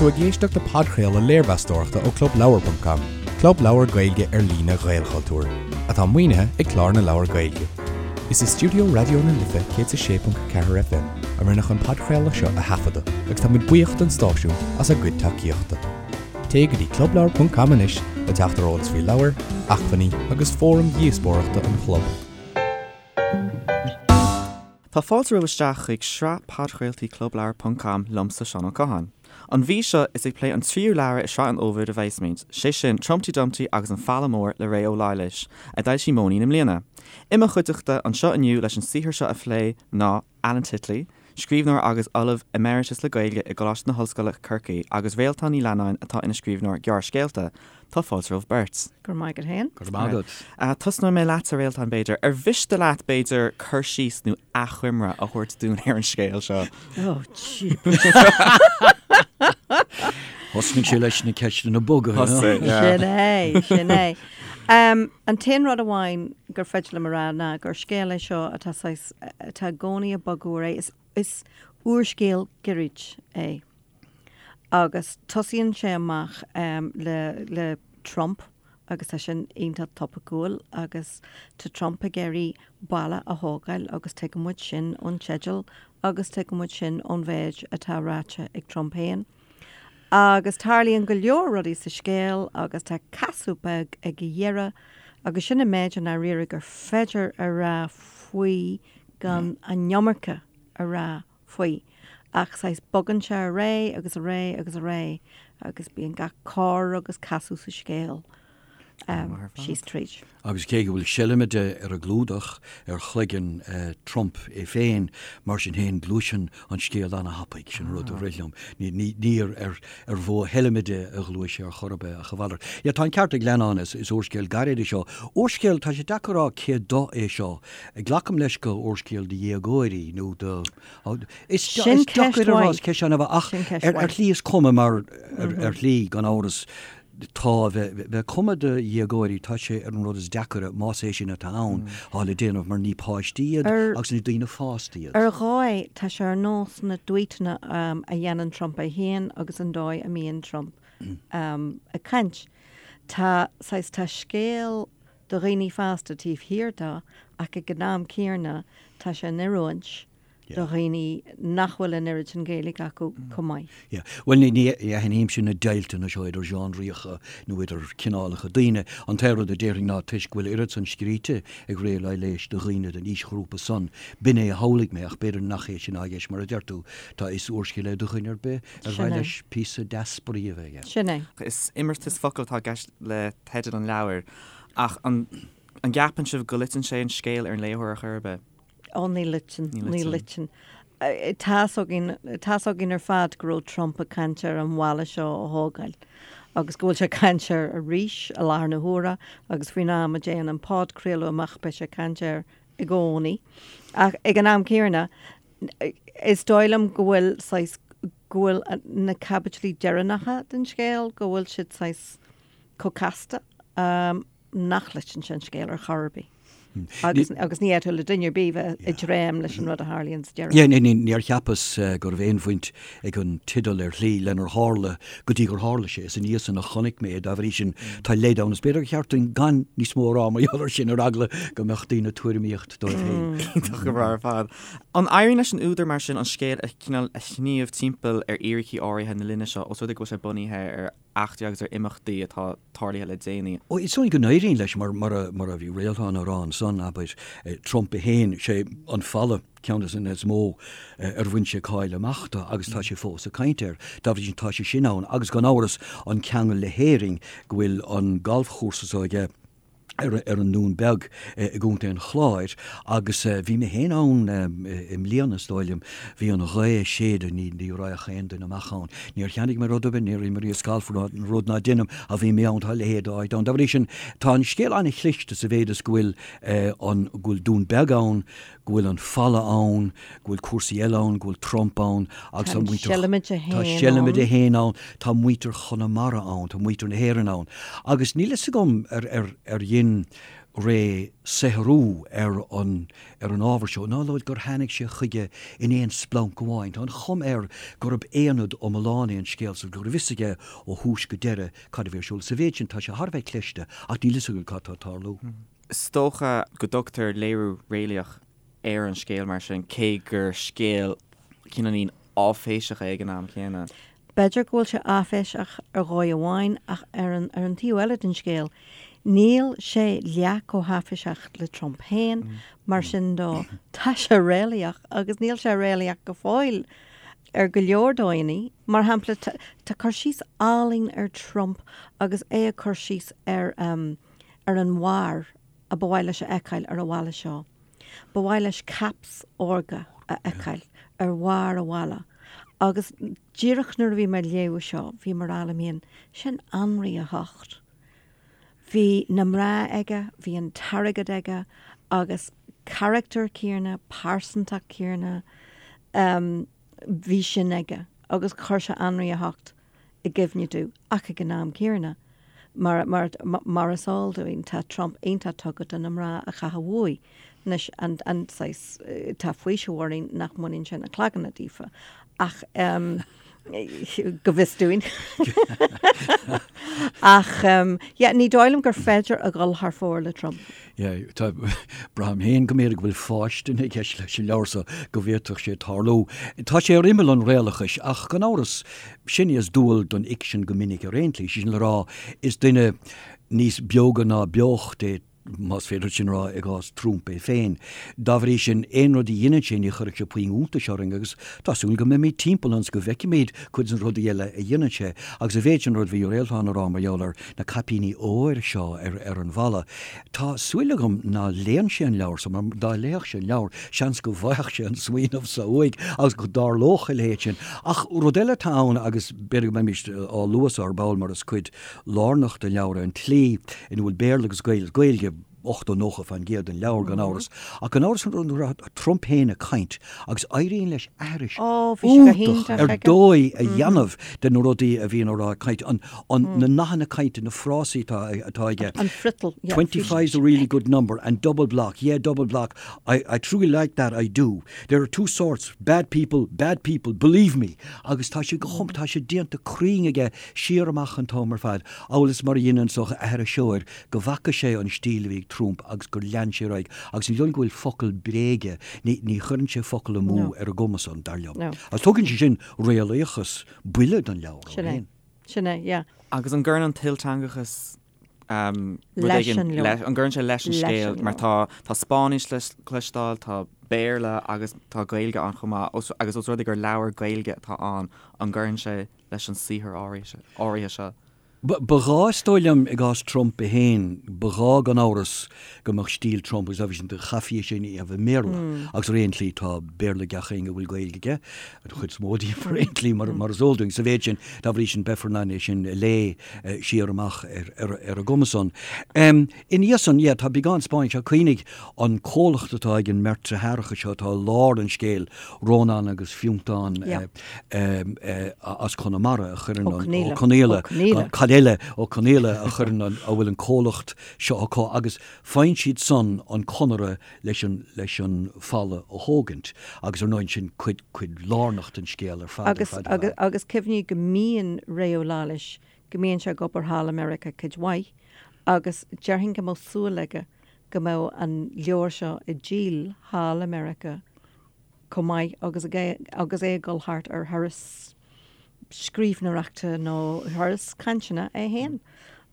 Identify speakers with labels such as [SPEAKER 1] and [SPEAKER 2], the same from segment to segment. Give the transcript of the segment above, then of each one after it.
[SPEAKER 1] tú ag éisteacht le podchraoladh léirmheastóireachta ó ClubLeabhar.com, club leabhar Gaeilge ar líne Ghaelchultúir, atá maoinithe ag Clár na Leabhar Gaeilge. Is i stiúideo Raidió na Life 106.4 FM a rinneadh an podchraoladh seo a thaifeadadh agus tá muid buíoch don stáisiún as a gcuid tacaíochta. Téigh go dtí clubleabhar.com anois le teacht ar eolas faoi leabhair, acmhainní agus fóraim dhíospóireachta an chlub.
[SPEAKER 2] Tá fáilte romhaibh isteach chuig sraith podchraoltaí Clubleabhar ponc com liomsa Seán Ó Catháin. An mhí seo is ag plé an tríú leabhar i sraith an Fhómhair a bheasmuid, sé sin Trumpty Dumpty agus an Falla Mór le Ré Ó Laighléis, a d'fhoilsigh Móinín i mbliana. I mo chuideachta anseo inniu leis an saothar seo a phlé ná Alan Titley, scríbhneoir agus Ollamh Emeritus le Gaeilge i gColáiste na hOllscoile Corcaigh agus Réaltán Ní Leannáin atá ina scríbhneoir gearrscéalta. Tá fáilte romhaibh beirt.
[SPEAKER 3] Go raibh maith agat féin.
[SPEAKER 4] Go raibh maith
[SPEAKER 2] agat. Tosnóidh mé leatsa, Réaltán, b'fhéidir. Ar mhiste leat, b'fhéidir, cur síos nó achoimre a thabhairt dúinn ar an scéal seo?
[SPEAKER 3] Oh, jeepers.
[SPEAKER 4] Thosnaigh sé leis na ceisteanna boga.
[SPEAKER 2] Thosaigh, yeah.
[SPEAKER 3] Sin é, sin é. An t-aon rud amháin gur féidir liom a rá ná gur scéal é seo atá saghas, atá i gcónaí ag bogadh ar aghaidh. Is úrscéal gairid é. Agus tosaíonn sé amach le le Trump agus tá sin iontach topaiceúil agus tá Trump ag iarraidh balla a thógáil agus tuigeann muid sin ón teideal agus tuigeann muid sin ón mhéid atá ráite ag Trump féin. Agus tarlaíonn go leor rudaí sa scéal agus tá casadh beag ag a dheireadh agus sin an méid i ndáiríre gur féidir a rá faoi gan an iomarca a rá faoi. Ach saghas bogann sé ar aghaidh agus ar aghaidh agus ar aghaidh agus bíonn gach cor agus casadh sa scéal síos tríd.
[SPEAKER 4] Agus cé go bhfuil seilmide ar an gclúdach ar chloigeann Trump é féin, mar sin féin gluaiseann an scéal ana-thapaidh, sin an rud a rith liom. Ní ar mhodh sheilmide a ghluais sé ar chor ar bith ach a mhalairt. Yeah, tá an ceart ag Leannán, is úrscéal gairid é seo. Úrscéal, tá sé deacair a rá cé do é seo. Glacaim leis gur úrscéal do dhéagóirí nó do, is
[SPEAKER 3] Sin ceist
[SPEAKER 4] deacair a rá,
[SPEAKER 3] mhaith.
[SPEAKER 4] is ceist an-mhaith ach
[SPEAKER 3] Sin ceist
[SPEAKER 4] ar
[SPEAKER 3] mhaith.
[SPEAKER 4] shlí is cuma mar ar shlí gan amhras tá bheith cuma do dhéagóirí tá sé ar an rud is deacaire más é sin atá ann atá le déanamh mar ní páistí iad
[SPEAKER 3] Ar
[SPEAKER 4] agus ní daoine fásta iad.
[SPEAKER 3] Ar dhóigh tá sé ar nós na dtweetanna a dhéanann Trump é féin agus an dóigh a mbíonn Trump ag caint. Tá saghas tá scéal do dhaoine fásta taobh thiar de ach ag an am céanna tá sé in oiriúint do dhaoine nach bhfuil an oiread sin Gaeilge acu chomh maith.
[SPEAKER 4] Yeah. Bhuel, ní aithnímse na deighilteanna seo idir genre-acha nó idir cineálacha daoine. An t-aon rud a déarfainn ná toisc go bhfuil oiread san scríte ag Ré Ó Laighléis do dhaoine den aoisghrúpa san, b'in é a shamhlaigh mé ach b'fhéidir nach é sin atá i gceist mar a deir tú, tá is úrscéal é do dhuine ar bith ar
[SPEAKER 3] Sin
[SPEAKER 4] mhaith
[SPEAKER 3] é.
[SPEAKER 4] leis píosa deas spraoi a bheith aige.
[SPEAKER 3] Sin é.
[SPEAKER 2] Is imeartas focal atá i gceist le teideal an leabhair, ach an an gceapann sibh go loiteann sé an scéal ar an léitheoir ar chor ar bith?
[SPEAKER 3] Ó, ní loiteann,
[SPEAKER 2] Ní
[SPEAKER 3] ní
[SPEAKER 2] loiteann.
[SPEAKER 3] loiteann. Tá's againn, tá's againn ar fad go raibh Trump ag caint ar an bhalla seo a thógáil agus go bhfuil sé ag caint air arís i láthair na huaire agus faoin am a dtéann an podchraoladh amach beidh sé ag caint air i gcónaí. Ach ag an am céanna, is dóigh liom go bhfuil saghas, go bhfuil na caibidlí deireanacha den scéal, go bhfuil siad saghas chomh casta nach loiteann sé an scéal ar chor ar bith. Agus agus ní fhéadfadh le duine ar bith bheith ag dréim leis an rud a tharlaíonn sa deireadh.
[SPEAKER 4] Yeah, ní, ní, níor cheapas go raibh aon bhaint ag an teideal ar shlí lenar tharla go dtí gur tharla sé. Is ina dhiaidh san a chonaic mé é, dá bhrí sin tá leid ann. Is b'fhéidir gur cheart dúinn gan níos mó a rá mar gheall air sin ar eagla go mbeadh daoine ag tuairimíocht dóibh féin.
[SPEAKER 2] Iontach go breá ar fad. An éiríonn leis an údar mar sin an scéal a cineál a shníomh timpeall ar fhíricí áirithe na linne seo, os rud é go bhfuil sé bunaithe ar eachtraí agus ar imeachtaí atá tarlaithe le déanaí.
[SPEAKER 4] Ó, is dóigh go n-éiríonn leis, mar, mar a, mar a bhí Réaltán á rá ansan, abair, Trump é féin, sé an falla ceann de na is mó ar bhain sé cáil amach de agus tá sé fós ag caint air. Dá bhrí sin tá sé sin ann agus gan amhras an ceangal le hÉirinn go bhfuil an galfchúrsa so aige, ar an nDún Beag i gContae an Chláir agus bhí mé féin ann i mbliana is dóigh liom. Bhí an ghaoth ag séideadh, ní ní raghadh aon duine amach ann. Níor cheannaigh mé rud ar bith, níor imríos galf, rud ná deinim ach bhí mé ann, tá a leithéid d'áit ann. Dá bhrí sin tá an scéal an-chliste sa mhéid is go bhfuil an go bhfuil Dún Beag ann, go bhfuil an falla ann, go bhfuil cúrsaí eile ann, go bhfuil Trump ann agus
[SPEAKER 3] Tá
[SPEAKER 4] tá
[SPEAKER 3] an
[SPEAKER 4] muintir
[SPEAKER 3] Seilmide
[SPEAKER 4] tá
[SPEAKER 3] féin
[SPEAKER 4] Seilmide
[SPEAKER 3] ann.
[SPEAKER 4] féin ann, tá muintir Chonamara ann, tá muintir na hÉireann ann. Agus níl fhios agam ar ar ar dhein. Ray saothrú ar an ar an ábhar seo ná gur tháinig sé chuige in aon splanc amháin. Tá an chuma air gurb aonad iomlán é an scéal so, go raibh fhios aige ó thús go deireadh cad a bhí ar siúl. Sa mhéid sin, tá sé thar a bheith cliste, ach níl fhios againn cad tá ag tarlú.
[SPEAKER 2] Is dócha go dtugtar léiriú réalaíoch ar an scéal mar sin, cé gur scéal cineáilín áiféiseach é ag an am céanna.
[SPEAKER 3] B'fhéidir go bhfuil sé áiféiseach ar dhóigh amháin ach ar an ar an taobh eile den scéal, níl sé leath chomh háiféiseach le Trump féin, mar sin dó, tá sé réalaíoch agus níl sé réalaíoch go fóill ar go leor dóigheanna. Mar shampla, tá cur síos álainn ar Trump agus é ag cur síos ar ar an bharr a ba mhaith leis a fheiceáil ar an bhalla seo. Ba mhaith leis caps órga a fheiceáil ar bharr an bhalla agus díreach nuair a bhí mé ag léamh seo bhí mé ag rá liom féin, sin Anraí a hOcht. Bhí na mná aige, bhí an t-airgead aige agus carachtar céanna, pearsantacht céanna, bhí sin aige agus chuir sé Anraí a hOcht i gcuimhne domh ach ag an am céanna, mar, mar, mar is eol dúinn, tá Trump iontach tugtha do na mná a chaitheamh uaidh. Anois, an, an saghas, tá faoiseamh orainn nach mbaineann sé na cloganna díofa, ach ehm, go bhfios dúinn. Ach ehm, yeah, ní dóigh liom gur féidir a dhul thar fóir le Trump.
[SPEAKER 4] Yeah, tá, braithim féin go mb'fhéidir go bhfuil fáistin i gceist leis an leabhar so, go bhféadfadh sé tarlú. Tá sé ar imeall an réalachais, ach gan amhras, sin is dual don fhicsean go minic ar aon tslí, sé sin le rá, is duine níos beoga ná beocht é, más féidir sin a rá i gcás Trump é féin. Dá bhrí sin, aon rud a dheineann sé, ní chuirfidh sé puinn iontais orainn agus tá súil go mbeimid timpeall ionas go bhfeicfimid cuid de na rudaí eile a dhéanann sé. Agus a mhéid sin rud a bhí Réaltán a rá mar gheall ar na caipíní óir seo ar an bhalla. Tá súil agam ná léann sé an leabhar so, mar dá léifeadh sé an leabhar, seans go bhfaigheadh sé an smaoineamh so uaidh agus go dtarlódh a leithéid sin. Ach rud eile atá ann, agus b'fhéidir go mbeimid á lua so ar ball mar is cuid lárnach den leabhar é an tslí ina bhfuil Béarla agus Gaeilge, 80, 90% den leabhar gan amhras. Ach gan amhras nuair atá Trump féin ag caint agus éiríonn leis aithris iontach ar dóigh a dhéanamh de na rudaí a bhíonn á rá ag caint, na nathanna cainte, na frásaí atá aige.
[SPEAKER 3] An friotal.
[SPEAKER 4] 25 is a really good number and double block, yeah double block, I truly like that, I do. There are two sorts, bad people, bad people, believe me. Agus tá sé go hom, tá sé déanta cruinn aige siar amach an t-am ar fad, amhail is mar a dhein an saghas aithriseoir go bhfaca sé an stíl a bhí ag Trump agus gur lean sé ar aghaidh agus ní dóigh liom go bhfuil focal bréige, ní, ní chuireann sé focal amú ar an gcuma san, dar liom. Agus tugann sé sin réalaíochas buile don leabhar
[SPEAKER 3] ó Sin é. Sin é, yeah.
[SPEAKER 2] Agus an gcuireann an t-ilteangachas rud éigin leis, an gcuireann sé leis an scéal mar tá, tá Spáinnis le cloisteáil, tá Béarla agus tá Gaeilge ann chomh maith agus os rud é gur leabhar Gaeilge atá ann, an gcuireann sé leis an saothar áirithe seo?
[SPEAKER 4] Ba ghá, is dóigh liom, i gcás Trump é féin, ba ghá gan amhras go mbeadh stíl Trump agus obviously chaithfí é sin a dhéanamh i mBéarla agus ar aon tslí tá Béarla ag gach éinne a bhfuil Gaeilge aige, an chuid is mó díobh ar aon tslí mar is eol dúinn. Sa mhéid sin, dá bhrí sin, beifear in ann é sin a léamh siar amach ar an gcuma san. Ina dhiaidh san, yeah, tá beagán Spáinnis ach cuimhnigh an comhlacht atá ag an mbeirt deartháireacha seo atá i lár an scéil, Rónán agus Fiontán as Conamara a chuireann an, Ó Conaola, cad eile, Ó Conaola a chuireann an, a bhfuil an comhlacht seo acu agus faigheann siad san an conradh leis an, leis an falla a thógaint agus ar ndóigh sin cuid, cuid lárnach den scéal ar fad, ar
[SPEAKER 3] fad, ar fad. Agus cuimhnigh go mbíonn Ré Ó Laighléis, go mbíonn sé ag obair thall i Meiriceá cuid mhaith agus déarfainn go mbeadh súil aige go mbeadh an leabhar seo ag díol thall i Meiriceá chomh maith agus agus é ag dul thart ar thuras scríbhneoireachta nó thuras cainteanna é féin.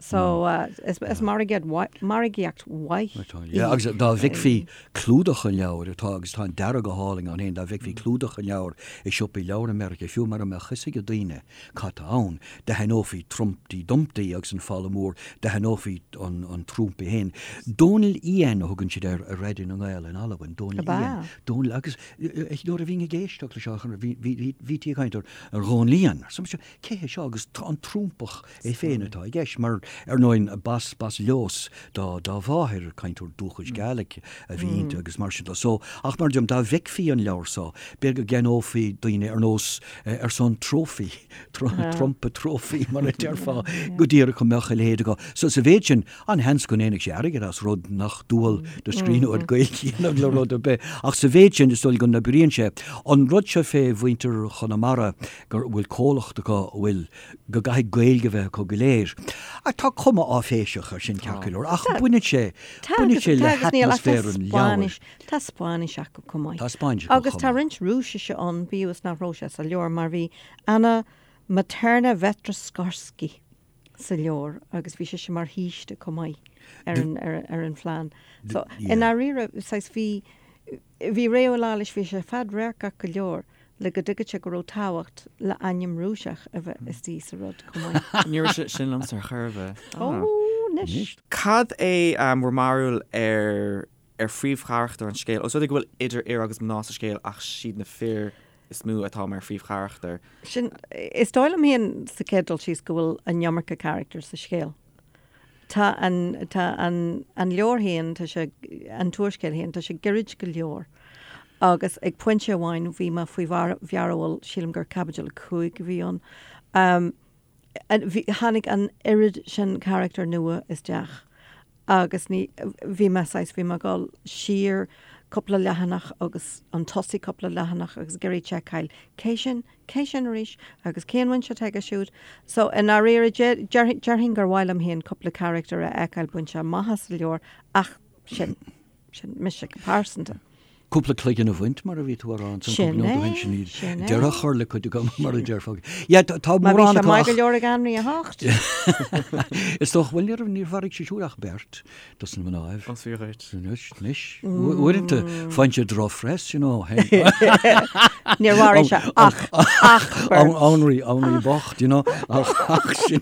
[SPEAKER 3] So is margaíocht mhaith
[SPEAKER 4] í. Agus dá bhfeicfí clúdach an leabhair atá, agus tá an dearadh go hálainn ann féin, dá bhfeicfí clúdach an leabhair i siopaí leabhar i Meiriceá, fiú mura mbeadh fhios ag daoine cad tá ann, d'aithneofaí Trumpty Dumpty agus an Falla Mór, d'aithneofaí an Trump é féin. Dòmhnall Iain a thugann siad air ar Raidió na nGael in Albain, Dòmhnall Iain. Dòmhnall, agus nuair a bhínn ag éisteacht leis seo, bhítí ag caint ar Dhónall Iain. Arsa mise, cé hé seo? Agus an Trumpach é féin atá i gceist, mar. Ar ndóigh, b'as, b'as Lios dá, dá mháthair, cainteoir dúchais Gaelic a bhí inti agus mar sin de. So, ach mar a deirim, dá bhfeicfí an leabhar so, b'fhéidir go gceannófaí daoine ar nós, ar son trophy, Trumpa trophy mar a déarfá, go díreach go mbeadh a leithéid acu. So, sa mhéid sin, an-sheans go ndéanfadh sé airgead as rud nach dual do scríbhneoir Gaeilge a dhéanamh le rud ar bith. Ach sa mhéid sin, is dóigh go n-oibríonn sé. An rud seo fé mhuintir Chonamara, go bhfuil comhlacht acu a bhfuil, go gcaithfidh Gaeilge a bheith acu go léir. Tá cuma áiféiseach air sin ceart go leor, ach baineann sé, baineann sé le hatmaisféar an leabhair.
[SPEAKER 3] Tá Spáinnis acu chomh maith.
[SPEAKER 4] Tá Spáinnis acu
[SPEAKER 3] Agus
[SPEAKER 4] chomh
[SPEAKER 3] tá
[SPEAKER 4] maith.
[SPEAKER 3] roinnt Rúisise ann, bíodh is nach raibh sé sa leabhar, mar bhí Anna Materna Vetroskorski sa leabhar agus bhí sise mar shaoiste chomh maith ar an, ar, ar an phlean. So, i ndáiríre, saghas, bhí, bhí Ré Ó Laighléis, bhí sé fadradharcach go leor le go dtuigfeadh sé go raibh tábhacht le ainm Rúiseach a bheith istigh sa rud chomh maith.
[SPEAKER 2] Ní raibh sé sin liomsa ar chor ar bith.
[SPEAKER 3] Ó, anois.
[SPEAKER 2] Cad é bhur mbarúil ar ar phríomhcharachtair an scéil? Os rud é go bhfuil idir fhir agus mná sa scéal ach siad na fir is mó atá mar phríomhcharachtair.
[SPEAKER 3] Sin, is dóigh liom féin sa chéad dul síos go bhfuil an iomarca carachtar sa scéal. Tá an, tá an, an leabhar féin, tá sé, an t-úrscéal féin, tá sé gairid go leor. Agus ag pointe amháin bhí mé faoi mhearbhall, sílim gur caibidil 5 a bhí ann, bhí, tháinig an oiread sin carachtar nua isteach agus ní, bhí mé saghas, bhí mé ag dul siar cúpla leathanach agus chun tosaigh cúpla leathanach agus ag iarraidh seiceáil cé sin, Cé sin arís? Agus cén bhaint atá aige siúd? So, i ndáiríre, déarfainn gur mhaith liom féin cúpla carachtar a fheiceáil bainte amach as an leabhar ach sin, sin mise go pearsanta.
[SPEAKER 4] Cúpla cloigeann a bhaint, mar a bhí tú a rá ansan cúpla nóiméad ó shin, sin iad. Sin é. Deireadh a chur le cuid acu, mar a déarfá. Yeah, tá
[SPEAKER 3] Má bhí
[SPEAKER 4] mórán
[SPEAKER 3] sé
[SPEAKER 4] acu
[SPEAKER 3] maith go
[SPEAKER 4] ach
[SPEAKER 3] leor ag Anraí a hOcht.
[SPEAKER 4] Is dócha, bhuel, ní raibh, níor mharaigh sé siúd ach beirt. Dos na mnáibh.
[SPEAKER 2] Más fíor dhuit.
[SPEAKER 4] Anois, anois. Uaireanta, faigheann sé drochphress, you know.
[SPEAKER 3] Níor mharaigh sé ach, ach
[SPEAKER 4] beirt. Anraí, Anraí bocht, you know. Ach, ach sin,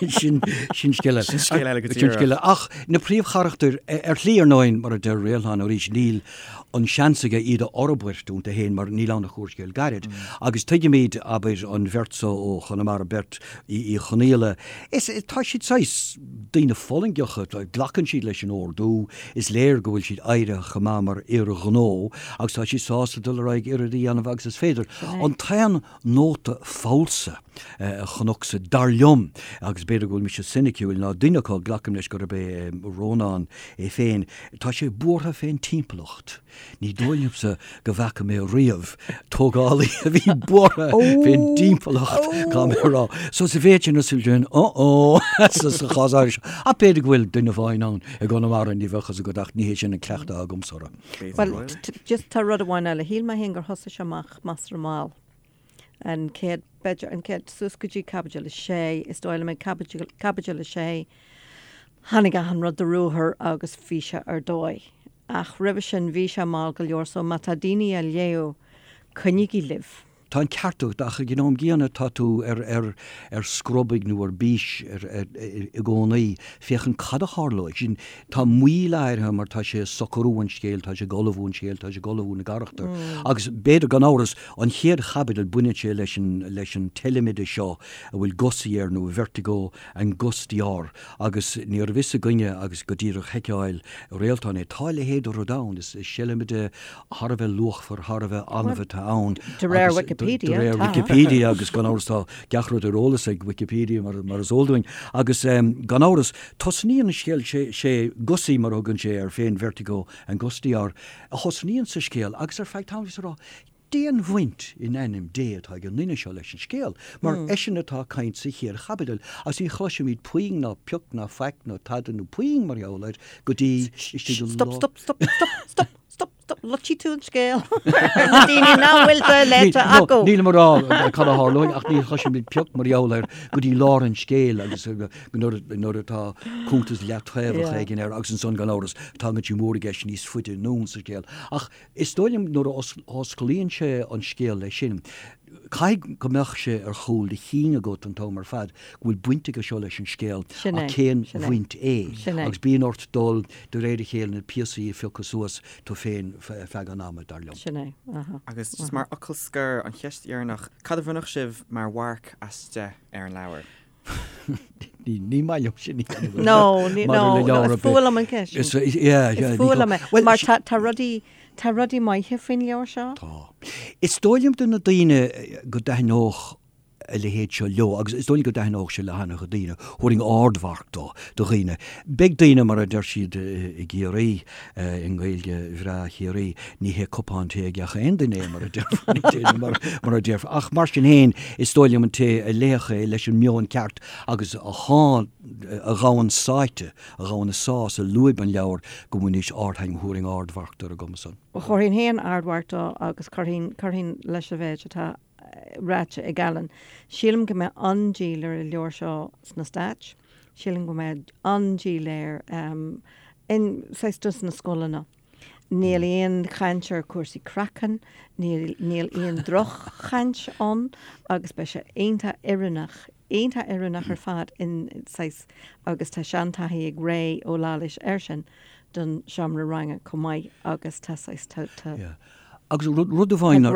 [SPEAKER 4] sin, sin, sin scéal eile.
[SPEAKER 2] Sin scéal eile go
[SPEAKER 4] Sin
[SPEAKER 2] díreach.
[SPEAKER 4] scéal eile. Ach na príomhcharachtair, ar shlí ar ndóigh, mar a deir Réaltán arís, níl an seans aige iad a fhorbairt iontu féin mar níl ann ach úrscéal gairid. Agus tuigimid, abair, an bheirt so ó Chonamara, beirt Uí Chonaola, is tá siad saghas daoine fulaingeacha, glacann siad leis an ordú, is léir go bhfuil siad éirithe chomh maith mar fhir ghnó agus tá siad sásta dul ar aghaidh oiread a dhéanamh agus is féidir. An t-aon nóta falsa a chonacsa, dar liom, agus b'fhéidir go bhfuil mise soiniciúil, ná duine acu, glacaim leis gurb é Rónán é féin, tá sé buartha fén timpeallacht. Ní dóigh liomsa go bhfaca mé riamh tógálaí a bhí buartha fén dtimpeallacht, caithfidh mé a rá. So sa mhéid sin, is sin, uh-oh, sa chás áirithe seo. Ach b'fhéidir go bhfuil duine amháin ann i gConamara, ní bheadh fhios agat, ach ní hé sin an cleachtadh agamsa orthu.
[SPEAKER 3] Bhuel, just tá rud amháin eile. Shíl mé féin gur thosaigh sé amach measartha mall. An chéad, b'fhéidir, an chéad, suas go dtí caibidil a sé, is dóigh liom ag caibidil, caibidil a sé, tháinig achan rud de ruathar agus bhí sé ar dóigh. Ach roimhe sin bhí sé mall go leor so má tá daoine á léamh, coinnígí libh.
[SPEAKER 4] Tá an ceart agat ach ag an am gcéanna tá tú ar ar ar scrobaigh nó ar bís ar ar i gcónaí féachaint cad a tharlóidh. Sin tá moill áirithe mar tá sé ag socrú an scéil, tá sé ag ullmhú an scéil, tá sé ag ullmhú na gcarachtar. Agus b'fhéidir gan amhras an chéad chaibidil baineann sé leis an leis an tseilmide seo a bhfuil Gussie air nó Vertigo Angustior Agus ní raibh fhios againne agus go díreach sheiceáil Réaltán é. Tá a leithéid de rud ann. Is seilmide thar a bheith luachmhar, thar a bheith annamh atá ann.
[SPEAKER 3] De réir Wikipedia,
[SPEAKER 4] De réir Wikipedia agus gan amhras tá gach rud ar eolas ag Wikipedia mar is eol dúinn. Agus gan amhras, tosnaíonn an scéal, sé Gussie mar a thugann sé air féin, Vertigo Angustior, a thosnaíonn sa scéal agus ar feadh tamaill bhíos ag rá, Cén bhaint in ainm Dé atá ag an nduine seo leis an scéal, mar eisean atá ag caint sa chéad chaibidil, agus ní chloisimid puinn ná pioc ná faic ná tada nó puinn mar gheall air go dtí istigh i
[SPEAKER 3] Stop, stop, stop, stop, stop, stop, stop, loitfidh tú an scéal ar na daoine nach bhfuil sé léite acu.
[SPEAKER 4] Nílim ag rá cad a tharlóidh ach ní chloisimid pioc mar gheall air go dtí lár an scéil agus nuair atá cuntas leataobhach éigin air agus ansan gan amhras tagann sé mór i gceist níos faide anonn sa scéal. Ach Is dóigh liom nuair a osclaíonn sé an scéal leis sin, caithfidh go mbeadh sé ar chúl do chinn agat an t-am ar fad go bhfuil baint aige seo leis an scéal ach cén bhaint é? Agus bíonn ort dul de réir a chéile na píosaí a phiocadh suas tú féin feadh an ama, dar liom.
[SPEAKER 3] Sin é. Aha.
[SPEAKER 2] Agus just mar fhocal scoir, an cheist dheireanach, cad a bhronnfadh sibh mar mharc as 10 ar an leabhar?
[SPEAKER 4] Ní maith liom sin a
[SPEAKER 3] dhéanamh. No, ní, no, no, is fuath liom an ceist sin. Is, yeah, yeah. Is fuath liom é. Mar tá, tá rudaí, tá rudaí maithe faoin leabhar seo.
[SPEAKER 4] Tá. Is dóigh liom do na daoine go dtaitneodh a leithéid seo leo, agus is dóigh liom go dtaitneodh sé le han-chuid daoine, thabharfainn ardmharc dó, do dhaoine. Beidh daoine, mar a deir siad i gCiarraí, i nGaeilge bhreá Chiarraí, ní hé cupán tae ag gach aon duine é, mar a déarfá, mar, mar a déarfá. Ach mar sin féin, is dóigh liom an té a léifeadh é leis an meon ceart agus a shá, a ghabhann sáite, a ghabhann a sá sa lúib an leabhair, go mbainfidís ardthaitneamh, thabharfainn ardmharc dó ar an gcuma san.
[SPEAKER 3] Chuirfinn féin ardmharc dó agus chuirfinn, chuirfinn leis an mhéid atá ráite ag Alan. Sílim go mbeidh an-díol ar an leabhar seo sna Stáit. Sílim go mbeidh an-díol air in, saghas, dos na scoileanna. Níl aon chaint ar chúrsaí craicinn, níl, níl aon droch-chaint ann agus beidh sé iontach oiriúnach, iontach oiriúnach ar fad in, saghas, agus tá seantaithí ag Ré Ó Laighléis air sin don seomra ranga chomh maith agus tá saghas, tá, tá.
[SPEAKER 4] Yeah. Agus rud amháin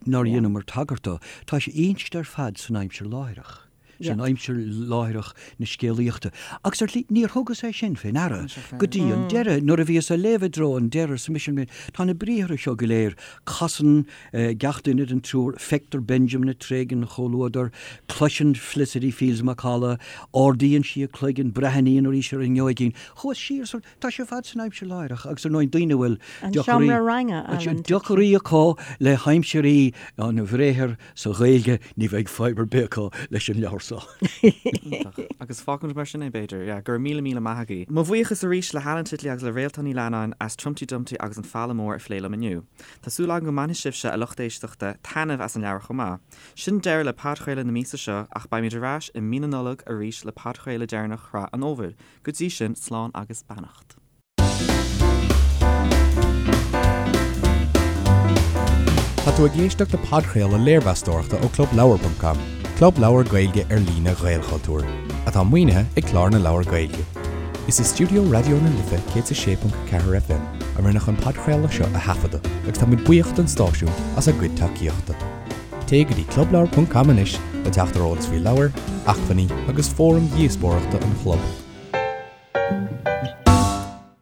[SPEAKER 4] nár dheineamar tagairt dó, tá sé inste ar fad san aimsir láithreach, san aimsir láithreach na scéalaíochta. Agus ar shlí, níor thugas é sin fé ndeara go dtí an deireadh. Nuair a bhíos á léamh i dtreo an deiridh, arsa mise, tá na briathra seo go léir, casann gach duine den triúr, feictear Benjamin ag tréigean an chomhluadair, cloiseann Felicity Fields macalla, ardaíonn sí a cloigeann, breathnaíonn arís ar an ngeoigín. Chuas siar Tá sé ar fad san aimsir láithreach agus ar ndóigh daoine a bhfuil
[SPEAKER 3] An seomra ranga, Alan.
[SPEAKER 4] deacraí acu le haimsirí an bhriathair sa Ghaeilge, ní bheidh fadhb ar bith acu leis an leabhar seo.
[SPEAKER 2] Iontach. Agus fágfaimid mar sin é, b'fhéidir. Yeah, go raibh míle míle maith agaibh. Mo bhuíochas arís le hAlan Titley agus le Réaltán Ní Leannáin as Trumpty Dumpty agus an Falla Mór a phlé liom inniu. Tá súil agam go mbainfidh sibhse, a lucht éisteachta, taitneamh as an leabhar chomh maith. Sin deireadh le podchraoladh na míosa seo ach beimid ar ais i mí na Nollag arís le podchraoladh deireanach shraith an fhómhair. Go dtí sin, slán agus beannacht.
[SPEAKER 1] Tá tú ag éisteacht le podchraoladh léirmheastóireachta ó ClubLeabhar.com, club leabhar Gaeilge ar líne Ghaelchultúir, atá maoinithe ag Clár na Leabhar Gaeilge. Is i stiúideo Raidió na Life 106.4 FM a rinneadh an podchraoladh seo a thaifeadadh agus táimid buíoch don stáisiún as a gcuid tacaíochta. Téigh go dtí clubleabhar.com anois le teacht ar eolas faoi leabhair, acmhainní agus fóraim dhíospóireachta an chlub.